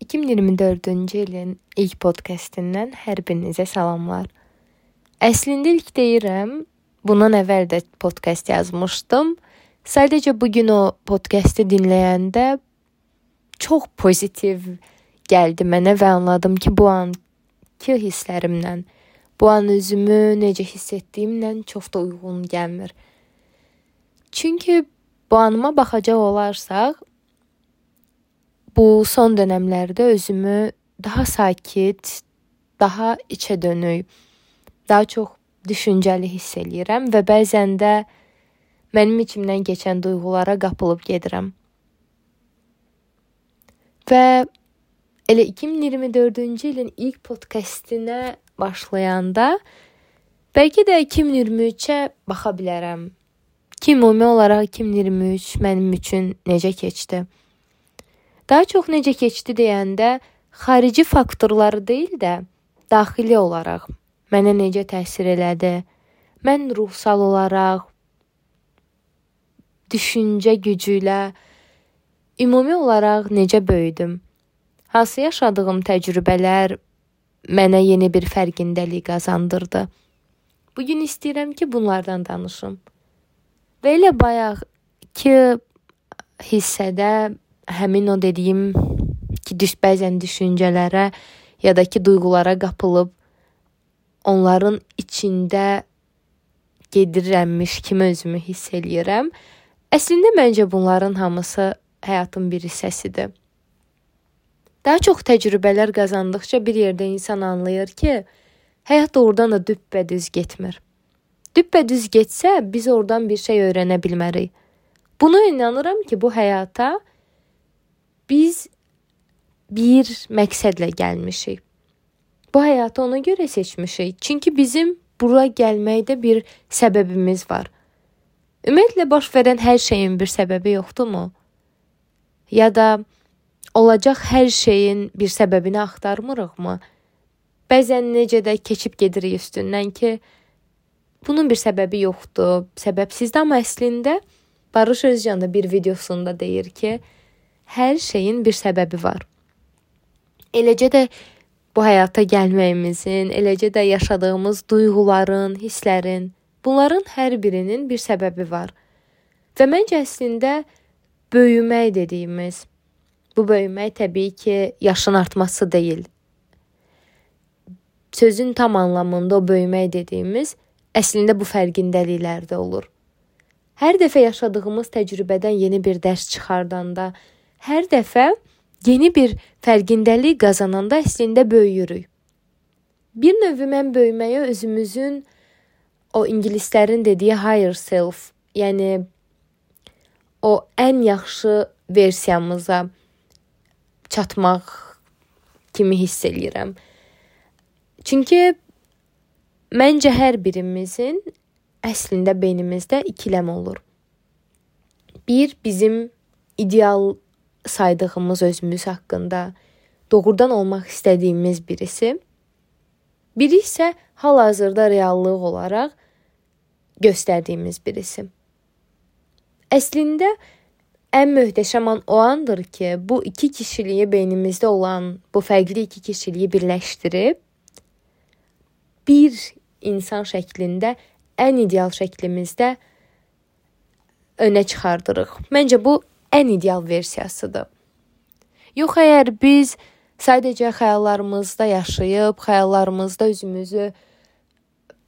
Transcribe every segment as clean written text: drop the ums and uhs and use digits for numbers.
2024-cü ilin ilk podcastindən hər birinizə salamlar. Əslində ilk deyirəm, bundan əvvəl də podkast yazmışdım. Sadəcə bugün o podkastı dinləyəndə çox pozitiv gəldi mənə və anladım ki, bu anki hisslərimlə, bu an özümü necə hiss etdiyimlə çox da uyğun gəlmir. Çünki bu anıma baxacaq olarsaq, bu son dönəmlərdə özümü daha sakit, daha içə dönük, daha çox düşüncəli hiss eləyirəm və bəzən də mənim içimdən keçən duyğulara qapılıb gedirəm. Və elə 2024-cü ilin ilk podkastinə başlayanda bəlkə də 2023-ə baxa bilərəm. Ki, ümumi olaraq 2023 mənim üçün necə keçdi? Daha çox necə keçdi deyəndə xarici faktorları deyil də daxili olaraq mənə necə təsir elədi? Mən ruhsal olaraq, düşüncə gücü ilə ümumi olaraq necə böyüdüm? Hansı yaşadığım təcrübələr mənə yeni bir fərqindəlik qazandırdı? Bugün istəyirəm ki, bunlardan danışım. Və elə bayaqki hissədə həmin o dediyim ki, bəzən düşüncələrə ya da ki, duyğulara qapılıb onların içində gedirəmmiş kimi özümü hiss eləyirəm. Əslində məncə bunların hamısı həyatın bir hissəsidir. Daha çox təcrübələr qazandıqca bir yerdə insan anlayır ki, həyat doğrudan da düppədüz getmir. Düppədüz getsə, biz oradan bir şey öyrənə bilmərik. Buna inanıram ki, bu həyata biz bir məqsədlə gəlmişik. Bu həyatı ona görə seçmişik. Çünki bizim bura gəlməkdə bir səbəbimiz var. Ümumiyyətlə, baş verən hər şeyin bir səbəbi yoxdurmu? Ya da olacaq hər şeyin bir səbəbini axtarmırıqmı? Bəzən necə də keçib gedirik üstündən ki, bunun bir səbəbi yoxdur, səbəbsizdir, amma əslində Barış Özcan da bir videosunda deyir ki, hər şeyin bir səbəbi var. Eləcə də bu həyata gəlməyimizin, eləcə də yaşadığımız duyğuların, hisslərin, bunların hər birinin bir səbəbi var. Və məncə əslində böyümək dediyimiz, bu böyümək təbii ki, yaşın artması deyil. Sözün tam anlamında o böyümək dediyimiz əslində bu fərqindəliklərdə olur. Hər dəfə yaşadığımız təcrübədən yeni bir dərs çıxardanda, hər dəfə yeni bir fərqindəlik qazananda əslində böyüyürük. Bir növ mən böyüməyə özümüzün o ingilislərin dediyi higher self, yəni o ən yaxşı versiyamıza çatmaq kimi hiss eləyirəm. Çünki məncə hər birimizin əslində beynimizdə ikiləm olur. Bir, bizim ideal saydığımız özümüz haqqında doğrudan olmaq istədiyimiz birisi. Biri isə hal-hazırda reallıq olaraq göstərdiyimiz birisi. Əslində ən möhtəşəm an o andır ki, bu iki kişiliyi beynimizdə olan bu fərqli iki kişiliyi birləşdirib bir insan şəklində ən ideal şəklimizdə önə çıxardırıq. Məncə bu ən ideal versiyasıdır. Yox, əgər biz sadəcə xəyallarımızda yaşayıb, xəyallarımızda özümüzü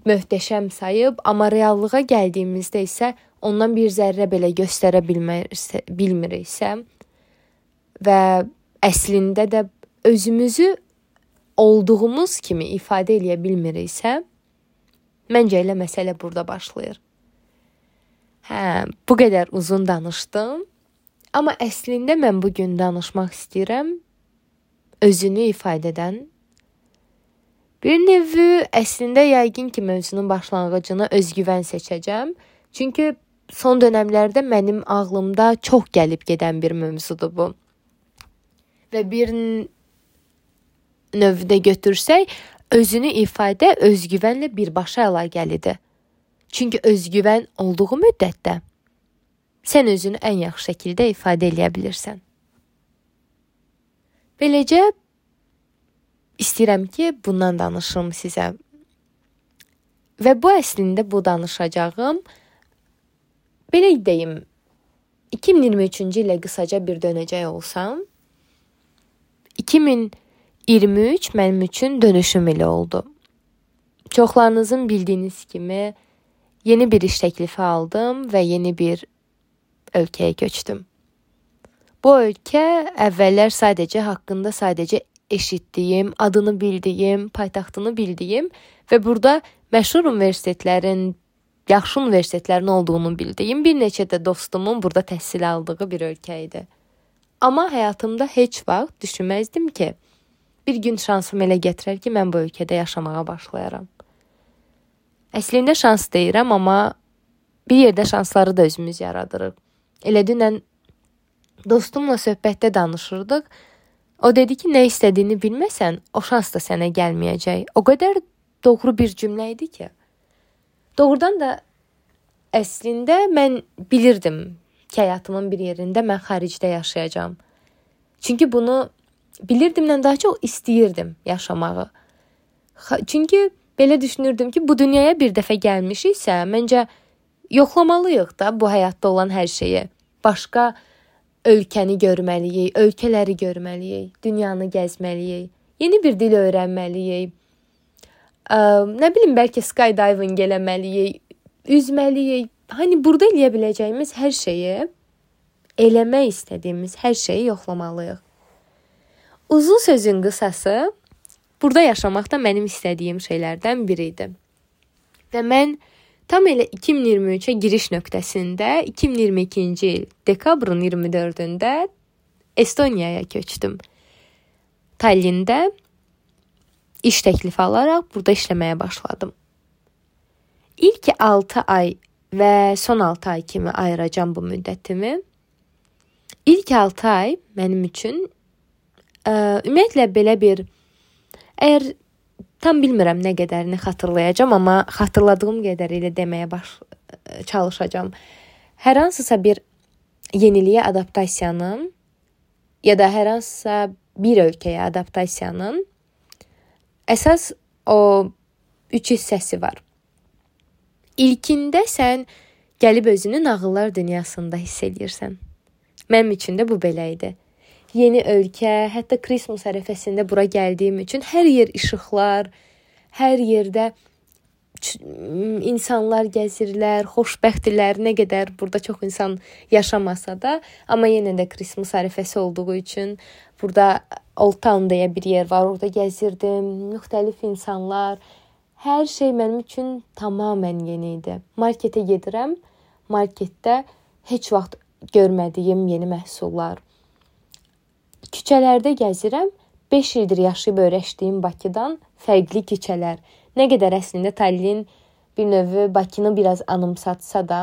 möhtəşəm sayıb, amma reallığa gəldiyimizdə isə ondan bir zərrə belə göstərə bilmiriksə və əslində də özümüzü olduğumuz kimi ifadə eləyə bilmiriksə, məncə elə məsələ burada başlayır. Bu qədər uzun danışdım. Amma əslində mən bugün danışmaq istəyirəm özünü ifadə edən. Bir növü əslində yəqin ki, mövzunun başlanğıcını özgüvən seçəcəm. Çünki son dönəmlərdə mənim ağlımda çox gəlib gedən bir mövzudur bu. Və bir növdə götürsək, özünü ifadə özgüvənlə birbaşa əlaqəlidir. Çünki özgüvən olduğu müddətdə sən özünü ən yaxşı şəkildə ifadə eləyə bilirsən. Beləcə istəyirəm ki, bundan danışım sizə. Və bu əslində bu danışacağım, belə deyim, 2023-cü ilə qısaca bir dönəcək olsam, 2023 mənim üçün dönüşüm ili oldu. Çoxlarınızın bildiyiniz kimi yeni bir iş təklifi aldım və yeni bir ölkəyə köçdüm. Bu ölkə əvvəllər haqqında sadəcə eşitdiyim, adını bildiyim, paytaxtını bildiyim və burada məşhur universitetlərin, yaxşı universitetlərin olduğunu bildiyim bir neçə də dostumun burada təhsil aldığı bir ölkə idi. Amma həyatımda heç vaxt düşünməzdim ki, bir gün şansım elə gətirər ki, mən bu ölkədə yaşamağa başlayaram. Əslində şans deyirəm, amma bir yerdə şansları da özümüz yaradırıq. Elə dünən dostumla söhbətdə danışırdıq. O dedi ki, nə istədiyini bilməsən, o şans da sənə gəlməyəcək. O qədər doğru bir cümlə idi ki. Doğrudan da əslində mən bilirdim ki, həyatımın bir yerində mən xaricdə yaşayacağam. Çünki bunu bilirdimdən daha çox istəyirdim yaşamağı. Çünki belə düşünürdüm ki, bu dünyaya bir dəfə gəlmişiksə, məncə yoxlamalıyıq da bu həyatda olan hər şeyi. Başqa ölkəni görməliyik, ölkələri görməliyik, dünyanı gəzməliyik, yeni bir dil öyrənməliyik. Nə bilim, bəlkə skydiving eləməliyik, üzməliyik. Hani burada eləyə biləcəyimiz hər şeyi, eləmək istədiyimiz hər şeyi yoxlamalıyıq. Uzun sözün qısası, burada yaşamaq da mənim istədiyim şeylərdən biri idi. Və mən tam elə 2023-ə giriş nöqtəsində 2022-ci il dekabrın 24-də Estoniyaya köçdüm. Tallində iş təklifi alaraq burada işləməyə başladım. İlk 6 ay və son 6 ay kimi ayıracağım bu müddətimi. İlk 6 ay mənim üçün ümumiyyətlə belə bir, əgər tam bilmirəm nə qədərini xatırlayacağam, amma xatırladığım qədərilə deməyə çalışacağam. Hər hansısa bir yeniliyə adaptasiyanın ya da hər hansısa bir ölkəyə adaptasiyanın əsas o 3 hissəsi var. İlkində sən gəlib özünü nağıllar dünyasında hiss edirsən. Mənim üçün də bu belə idi. Yeni ölkə, hətta Christmas ərəfəsində bura gəldiyim üçün hər yer işıqlar, hər yerdə insanlar gəzirlər, xoşbəxtdirlər, nə qədər burada çox insan yaşamasa da, amma yenə də Christmas ərəfəsi olduğu üçün burada Old Town deyə bir yer var, orada gəzirdim, müxtəlif insanlar, hər şey mənim üçün tamamilə yeni idi. Marketə gedirəm, marketdə heç vaxt görmədiyim yeni məhsullar. Küçələrdə gəzirəm, 5 ildir yaşayıb öyrəşdiyim Bakıdan fərqli küçələr. Nə qədər əslində Tallinn bir növ Bakını biraz anımsatsa da,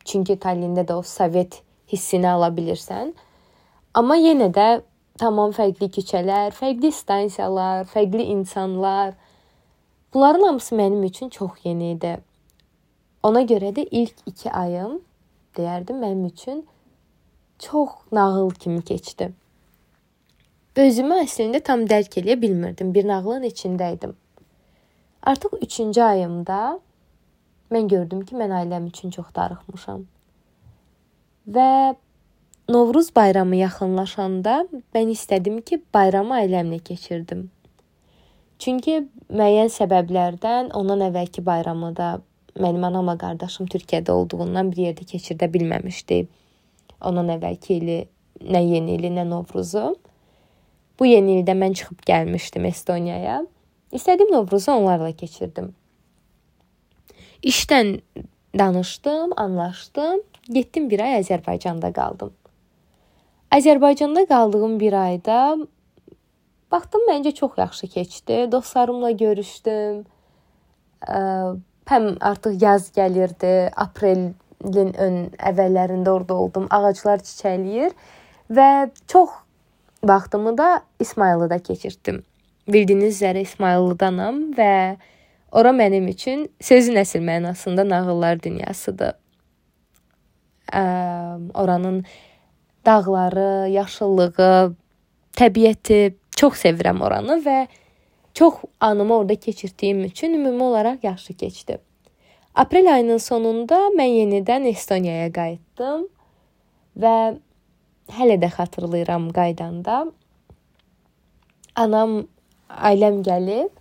çünki Tallində də o Sovet hissini ala bilirsən. Amma yenə də tamam fərqli küçələr, fərqli stansiyalar, fərqli insanlar. Bunların hamısı mənim üçün çox yeni idi. Ona görə də ilk 2 ayım, deyərdim, mənim üçün çox nağıl kimi keçdi. Özümü əslində tam dərk eləyə bilmirdim. Bir nağılın içindəydim. Artıq 3-cü ayımda mən gördüm ki, mən ailəm üçün çox darıxmışam. Və Novruz bayramı yaxınlaşanda mən istədim ki, bayramı ailəmlə keçirdim. Çünki müəyyən səbəblərdən ondan əvvəlki bayramı da mənim anamla qardaşım Türkiyədə olduğundan bir yerdə keçirdə bilməmişdi. Ondan əvvəlki ili nə yeni ili, nə Novruzu. Bu yeni ildə mən çıxıb gəlmişdim Estoniyaya. İstədiyim Novruzu onlarla keçirdim. İşdən danışdım, anlaşdım. Getdim bir ay Azərbaycanda qaldım. Azərbaycanda qaldığım bir ayda baxdım, məncə çox yaxşı keçdi. Dostlarımla görüşdüm. Həm artıq yaz gəlirdi, aprelin əvvəllərində orada oldum. Ağaclar çiçəkləyir və çox vaxtımı da İsmayılıda keçirtdim. Bildiyiniz üzrə İsmayıllıdanam və ora mənim üçün sözün əsl mənasında nağıllar dünyasıdır. Oranın dağları, yaşıllığı, təbiəti çox sevirəm oranı və çox anımı orada keçirdiyim üçün ümumi olaraq yaxşı keçdi. Aprel ayının sonunda mən yenidən Estoniyaya qayıtdım və hələ də xatırlayıram qaydanda. Anam, ailəm gəlib,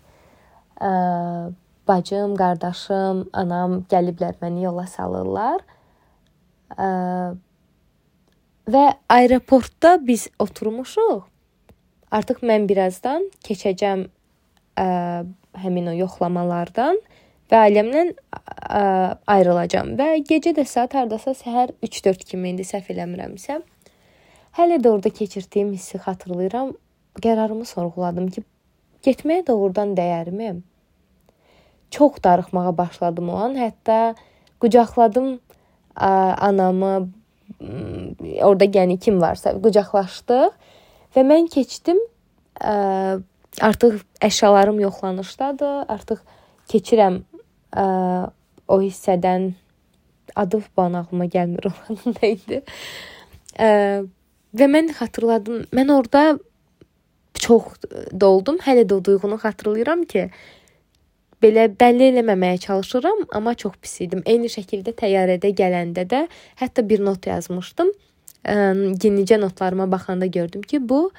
bacım, qardaşım, anam gəliblər məni yola salırlar. Və aeroportda biz oturmuşuq. Artıq mən birazdan keçəcəm həmin o yoxlamalardan və ailəmlə ayrılacağam. Və gecə də saat hardasa səhər 3-4 kimi idi, səhv eləmirəmsə. Hələ də orada keçirdiyim hissi xatırlayıram. Qərarımı sorğuladım ki, getməyə doğrudan dəyərmi? Çox darıxmağa başladım o an. Hətta qucaqladım anamı, orada yəni kim varsa qucaqlaşdıq və mən keçdim. Artıq əşyalarım yoxlanışdadır. Artıq keçirəm o hissədən. Adı bana ağlıma gəlmir onun neydi. Və mən xatırladım. Mən orada çox doldum. Hələ də o duyğunu xatırlayıram ki, belə bəlli eləməməyə çalışıram, amma çox pis idim. Eyni şəkildə təyyarədə gələndə də hətta bir not yazmışdım. Yenicə notlarıma baxanda gördüm ki, bu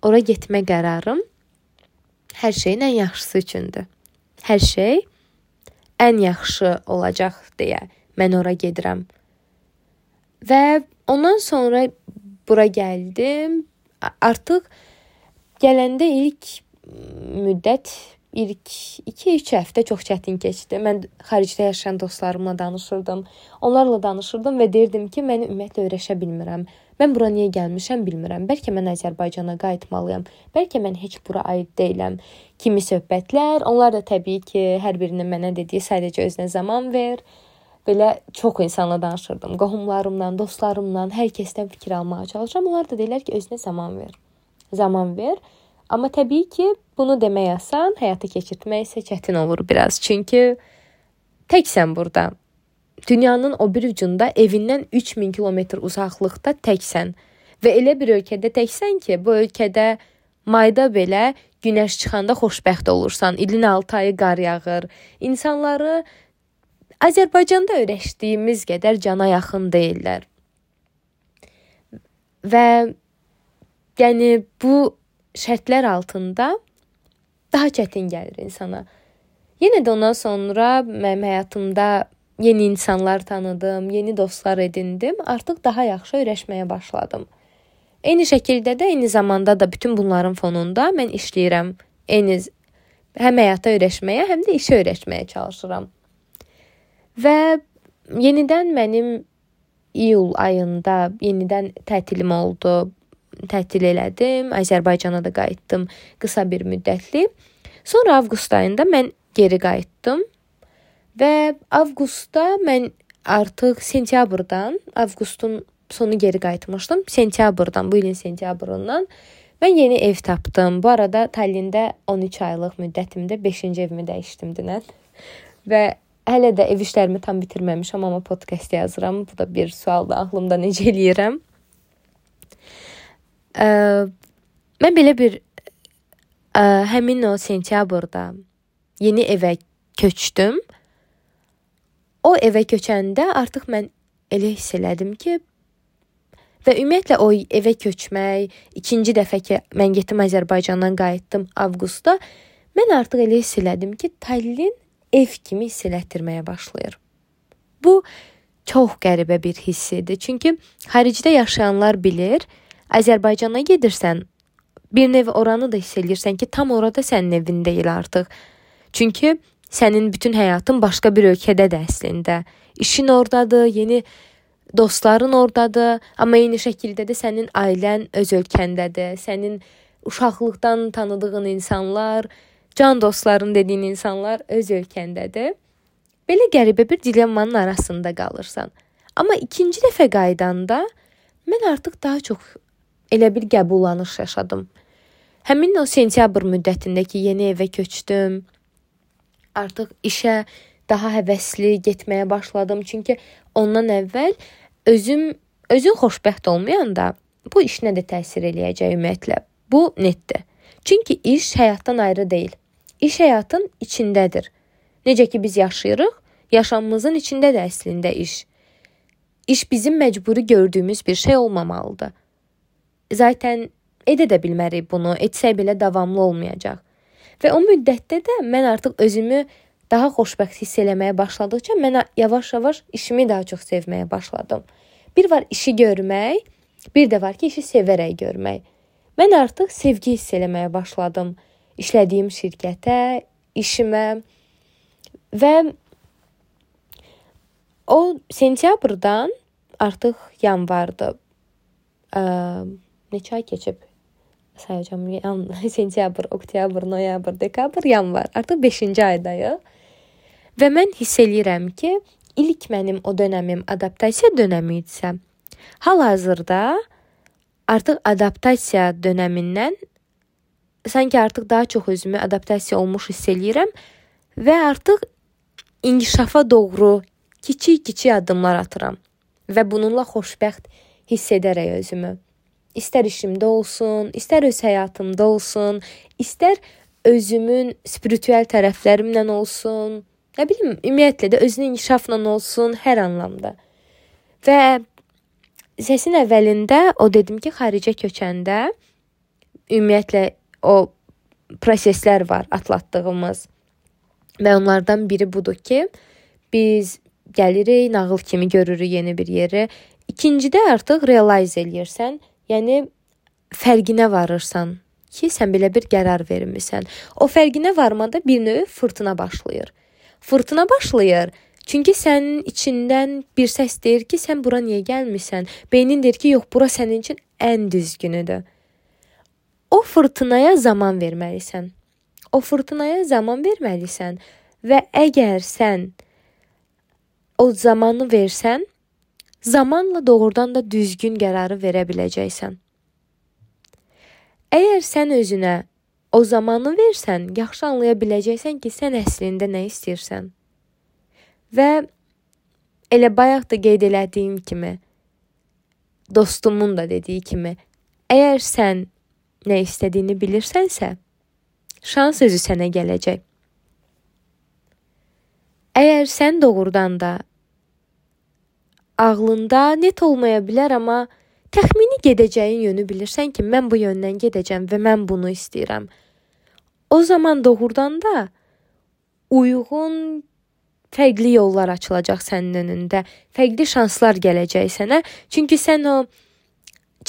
ora getmə qərarım hər şeyin ən yaxşısı üçündür. Hər şey ən yaxşı olacaq deyə mən ora gedirəm. Və ondan sonra bura gəldim. Artıq gələndə ilk müddət, ilk 2-3 həftə çox çətin keçdi. Mən xaricdə yaşayan dostlarımla danışırdım. Onlarla danışırdım və deyirdim ki, mən ümumiyyətlə öyrəşə bilmirəm. Mən bura niyə gəlmişəm bilmirəm. Bəlkə mən Azərbaycana qayıtmalıyam. Bəlkə mən heç bura aid deyiləm. Kimi söhbətlər. Onlar da təbii ki, hər birinin mənə dediyi sadəcə özünə zaman ver. Belə çox insanla danışırdım. Qohumlarımla, dostlarımla, hər kəsdən fikir almağa çalışıram. Onlar da deyirlər ki, özünə zaman ver. Zaman ver. Amma təbii ki, bunu demək asan, həyata keçirtmək isə çətin olur biraz. Çünki təksən burada. Dünyanın o bir ucunda evindən 3000 kilometr uzaqlıqda təksən. Və elə bir ölkədə təksən ki, bu ölkədə mayda belə günəş çıxanda xoşbəxt olursan. İlin 6 ayı qar yağır. İnsanları Azərbaycanda öyrəşdiyimiz qədər cana yaxın deyirlər. Və yəni bu şərtlər altında daha çətin gəlir insana. Yenə də ondan sonra mənim həyatımda yeni insanlar tanıdım, yeni dostlar edindim. Artıq daha yaxşı öyrəşməyə başladım. Eyni şəkildə də, eyni zamanda da bütün bunların fonunda mən işləyirəm. Həm həyata öyrəşməyə, həm də işə öyrəşməyə çalışıram. Və yenidən mənim iyul ayında yenidən tətilim oldu. Tətil elədim, Azərbaycana da qayıtdım qısa bir müddətli. Sonra avqust ayında mən geri qayıtdım və avqustda mən artıq sentyabrdan, avqustun sonu geri qayıtmışdım. Sentyabrdan, bu ilin sentyabrından mən yeni ev tapdım. Bu arada Tallində 13 aylıq müddətimdə 5-ci evimi dəyişdim dünən və hələ də ev işlərimi tam bitirməmişəm, amma podkast yazıram. Bu da bir sualdır ağlımda, necə eləyirəm. Mən belə bir həmin o sentyabrda yeni evə köçdüm. O evə köçəndə artıq mən elə hiss elədim ki, və ümumiyyətlə o evə köçmək, ikinci dəfə ki mən getdim Azərbaycandan qayıtdım avqustda, mən artıq elə hiss elədim ki, Tallinn ev kimi hiss elətdirməyə başlayır. Bu çox qəribə bir hiss idi. Çünki xaricdə yaşayanlar bilir, Azərbaycana gedirsən, bir nev oranı da hiss edirsən ki, tam orada sənin evin deyil artıq. Çünki sənin bütün həyatın başqa bir ölkədədir əslində. İşin oradadır, yeni dostların oradadır, amma eyni şəkildə də sənin ailən öz ölkəndədir. Sənin uşaqlıqdan tanıdığın insanlar, can dostların dediyin insanlar öz ölkəndədir. Belə qəribə bir dilemmanın arasında qalırsan. Amma ikinci dəfə qaydanda mən artıq daha çox elə bir qəbullanış yaşadım. Həmin o sentyabr müddətindəki yeni evə köçdüm. Artıq işə daha həvəsli getməyə başladım. Çünki ondan əvvəl özüm özün xoşbəxt olmayanda bu işinə də təsir eləyəcək ümumiyyətlə. Bu netdir. Çünki iş həyatdan ayrı deyil. İş həyatın içindədir. Necə ki biz yaşayırıq, yaşamımızın içindədir əslində iş. İş bizim məcburi gördüyümüz bir şey olmamalıdır. Zaten edə də bilmərik bunu, etsək belə davamlı olmayacaq. Və o müddətdə də mən artıq özümü daha xoşbəxt hiss eləməyə başladıqca mən yavaş-yavaş işimi daha çox sevməyə başladım. Bir var işi görmək, bir də var ki işi sevərək görmək. Mən artıq sevgi hiss eləməyə başladım. İşlədiyim şirkətə, işimə və o sentyabrdan artıq yanvardır. Neçə ay keçib? Sayacağım. Sentyabr, oktyabr, noyabr, dekabr, yanvar. Artıq 5-ci aydayıq. Və mən hiss eləyirəm ki, ilk mənim o dönəmim adaptasiya dönəmi idisə, hal-hazırda artıq adaptasiya dönəmindən sanki artıq daha çox özümü adaptasiya olmuş hiss eləyirəm və artıq inkişafa doğru kiçik-kiçik addımlar atıram və bununla xoşbəxt hiss edərək özümü. İstər işimdə olsun, istər öz həyatımda olsun, istər özümün spiritüel tərəflərimlə olsun, nə bilim, ümumiyyətlə də özünün inkişafla olsun, hər anlamda. Və səsin əvvəlində o dedim ki, xaricə köçəndə ümumiyyətlə o proseslər var atlatdığımız və onlardan biri budur ki, biz gəlirik, nağıl kimi görürük yeni bir yeri. İkincidə artıq realize eləyirsən, yəni fərqinə varırsan ki, sən belə bir qərar vermisən. O fərqinə varmada bir növ fırtına başlayır. Fırtına başlayır, çünki sənin içindən bir səs deyir ki, sən bura niyə gəlmisən? Beynin deyir ki, yox, bura sənin üçün ən düzgünüdür. O fırtınaya zaman verməlisən. O fırtınaya zaman verməlisən və əgər sən o zamanı versən, zamanla doğrudan da düzgün qərarı verə biləcəksən. Əgər sən özünə o zamanı versən, yaxşı anlaya biləcəksən ki, sən əslində nə istəyirsən. Və elə bayaq da qeyd elədiyim kimi, dostumun da dediyi kimi, əgər sən nə istədiyini bilirsənsə, şans özü sənə gələcək. Əgər sən doğrudan da ağlında net olmaya bilər, amma təxmini gedəcəyin yönü bilirsən ki, mən bu yöndən gedəcəm və mən bunu istəyirəm. O zaman doğrudan da uyğun fərqli yollar açılacaq sənin önündə. Fərqli şanslar gələcək sənə. Çünki sən o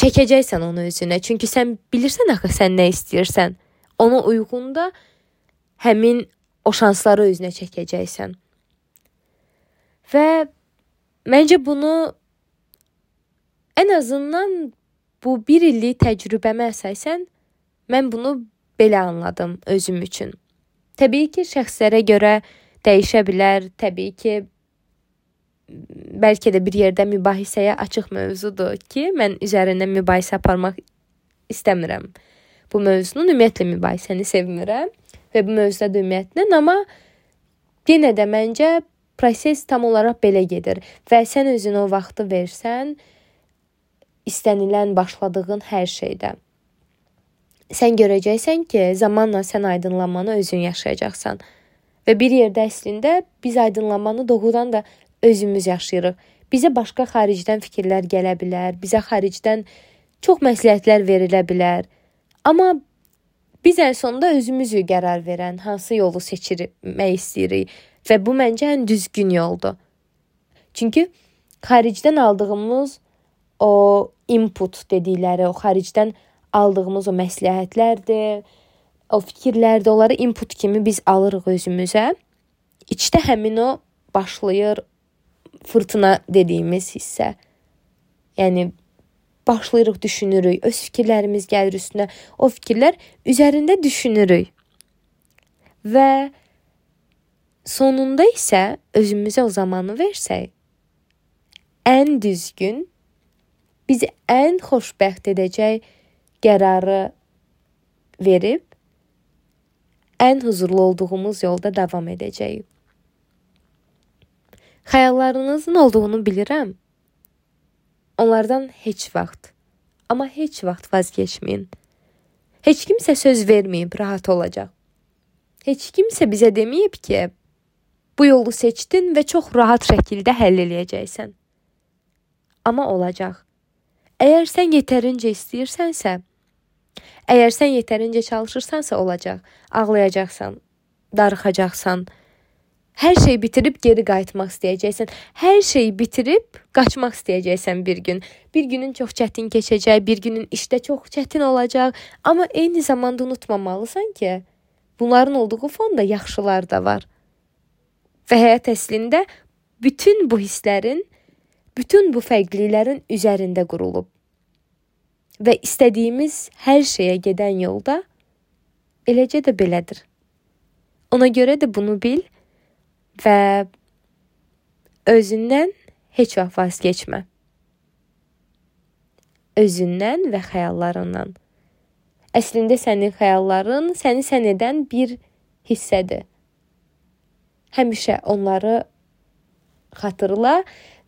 çəkəcəksən onu özünə. Çünki sən bilirsən axı sən nə istəyirsən. Ona uyğun da həmin o şansları özünə çəkəcəksən. Və məncə bunu ən azından bu 1 illik təcrübəmə əsasən mən bunu belə anladım özüm üçün. Təbii ki, şəxslərə görə dəyişə bilər. Təbii ki, bəlkə də bir yerdə mübahisəyə açıq mövzudur ki, mən üzərində mübahisə aparmaq istəmirəm. Bu mövzunun ümumiyyətlə mübahisəni sevmirəm və bu mövzuda da ümumiyyətlə, amma yenə də məncə proses tam olaraq belə gedir və sən özünə o vaxtı versən, istənilən başladığın hər şeydə. Sən görəcəksən ki, zamanla sən aydınlanmanı özün yaşayacaqsan. Və bir yerdə əslində biz aydınlanmanı doğrudan da özümüz yaşayırıq. Bizə başqa xaricdən fikirlər gələ bilər, bizə xaricdən çox məsləhətlər verilə bilər. Amma biz ən sonunda özümüzü qərar verən hansı yolu seçirmək istəyirik və bu məncə ən düzgün yoldur. Çünki xaricdən aldığımız o input dedikləri, o xaricdən aldığımız o məsləhətlərdir, o fikirlərdir, onları input kimi biz alırıq özümüzə. İçdə həmin o başlayır fırtına dediyimiz hissə. Yəni başlayırıq, düşünürük, öz fikirlərimiz gəlir üstünə. O fikirlər üzərində düşünürük. Və sonunda isə özümüzə o zamanı versək, ən düzgün, bizi ən xoşbəxt edəcək qərarı verib, ən huzurlu olduğumuz yolda davam edəcəyik. Xəyallarınızın olduğunu bilirəm. Onlardan heç vaxt, amma heç vaxt vazgeçməyin. Heç kimsə söz verməyib rahat olacaq. Heç kimsə bizə deməyib ki, bu yolu seçdin və çox rahat şəkildə həll eləyəcəksən. Amma olacaq. Əgər sən yetərincə istəyirsənsə, əgər sən yetərincə çalışırsansa olacaq. Ağlayacaqsan, darıxacaqsan, hər şeyi bitirib geri qayıtmaq istəyəcəksən. Hər şeyi bitirib qaçmaq istəyəcəksən bir gün. Bir günün çox çətin keçəcək, bir günün işdə çox çətin olacaq. Amma eyni zamanda unutmamalısan ki, bunların olduğu fonda yaxşılar da var. Və həyat əslində bütün bu hisslərin, bütün bu fərqliliklərin üzərində qurulub. Və istədiyimiz hər şeyə gedən yolda eləcə də belədir. Ona görə də bunu bil və özündən heç vaxt vazgeçmə. Özündən və xəyallarından. Əslində sənin xəyalların səni sən edən bir hissədir. Həmişə onları xatırla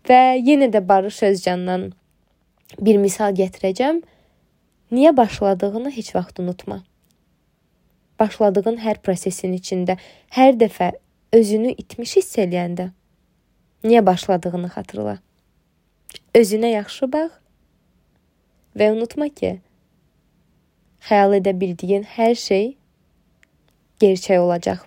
və yenə də Barış Özcandan bir misal gətirəcəm. Niyə başladığını heç vaxt unutma. Başladığın hər prosesin içində, hər dəfə özünü itmiş hiss eləyəndə niyə başladığını xatırla. Özünə yaxşı bax və unutma ki, xəyal edə bildiyin hər şey gerçək olacaq.